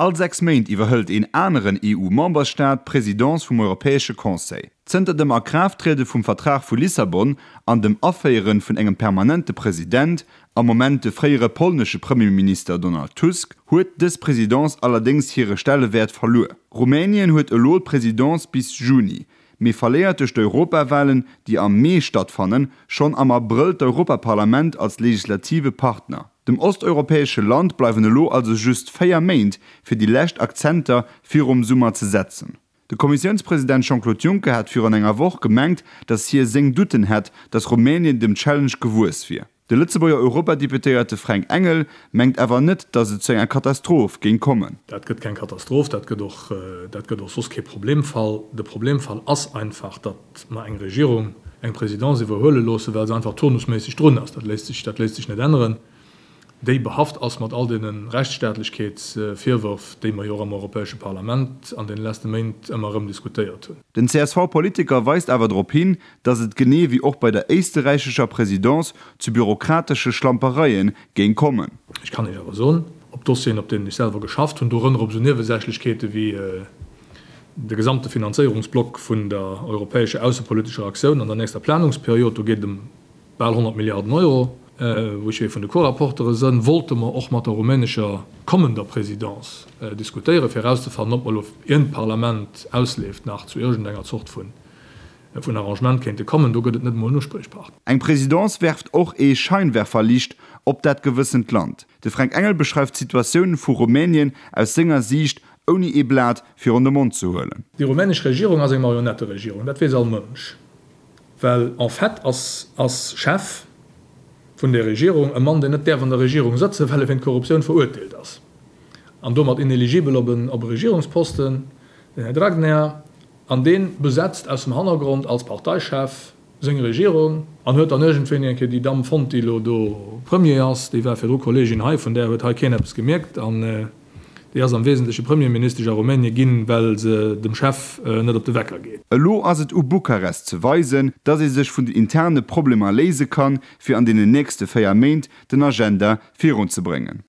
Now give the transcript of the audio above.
All 6 Méint iwwerhëlt een aneren EU-Memberstaat d'Presidence vum Europäesche Conseil. Zënter dem A-Kraaft-Triede vum Vertrag vu Lissabon an dem Aféiere vun engem permanente President, am Moment de fréiere polnesche Premierminister Donald Tusk, huet dës Presidence allerdéngs hire Stellewäert verluer. Rumänien huet elo d'Presidence bis Juni, mee verléiert duerch d'Europawalen, déi am Mee stattfannen, schonn am Abrëll d'Europaparlament als legislative Partner. Dem osteuropäesche Land bleiwen elo also just 4 Méint, fir déi lescht Akzenter virum Summer ze setzen. De Kommissiounspresident Jean-Claude Juncker hat virun enger Woch gemengt, datt hie seng Doutten hätt, datt Rumänien dem Challenge gewuess wier. De Lëtzebuerger Europadeputéierte Fränk Engel mengt awer net, datt et zu enger Katastroph géing kommen. Dat gëtt keng Katastroph, dat gëtt och, dat gëtt och soss kee Problemfall. De Problemfall ass einfach, datt mer eng Regierung eng Présidence iwwerhuele loossen, well se einfach turnusméisseg drun ass. Dat léisst sech, dat léisst sech net änneren. Déi behaft ass mat all deene Rechtsstaatlechkeetsvirwërf, déi mer jo och am Europäesche Parlament an deene leschte Méint ëmmer erëm diskutéiert hunn. Den CSV-Politiker weist awer drop hin, datt et genee wéi och bei der éisterräichescher Presidence zu bürokratesche Schlampereie géing kommen. Ech kann Iech awer soen, op Dossieren, op deenen ech selwer geschafft hunn, dorënner op esou Niewesächlechkeete wéi de gesamte Finanzéierungsblock vun der europäescher aussepolitescher Aktioun an der nächster Planungsperiod, do geet et ëm bal 100 Milliarden Euro, wou ech ee vun de Co-Rapportere sënn, wollte mer och mat der rumänescher kommender Présidence diskutéieren, fir erauszefannen, ob mer elo, ien d'Parlament ausleeft, nach zu iergendenger Zort vun Arrangement kéinte kommen. Do gëtt et net emol en Uspriechpartner. Eng Présidence werft och ee Scheinwerferlicht op dat gewëssent Land. De Fränk Engel beschreift d'Situatioun vu Rumänien aus senger Siicht, ouni ee Blat virun de Mond ze huelen. Déi rumänesch Regierung ass eng Marionetteregierung, dat weess all Mënsch. Well en fait ass ass Chef vun där Regierung e Mann, deen net däerf an der Regierung sëtzen, well e wéint Korruptioun verurteelt ass an domat ineligibel op en op e Regierungsposten, den Här Dragnea. An dee besetzt aus dem Hannergrond als Parteichef seng Regierung an huet dann iergendwéini eng Kéier déi Damm fonnt, déi elo do Premier ass. Déi war virdru Kolleegin hei, vun där huet hei keen eppes gemierkt. An Déi ass am Wesentleche Premierministesch a Rumänie ginn, well se dem Chef net op de Wecker geet. Elo ass et u Bukarest ze weisen, datt ee sech vun den interne Problemer léise kann, fir an deenen nächste 4 Méint den Agenda virunzebréngen.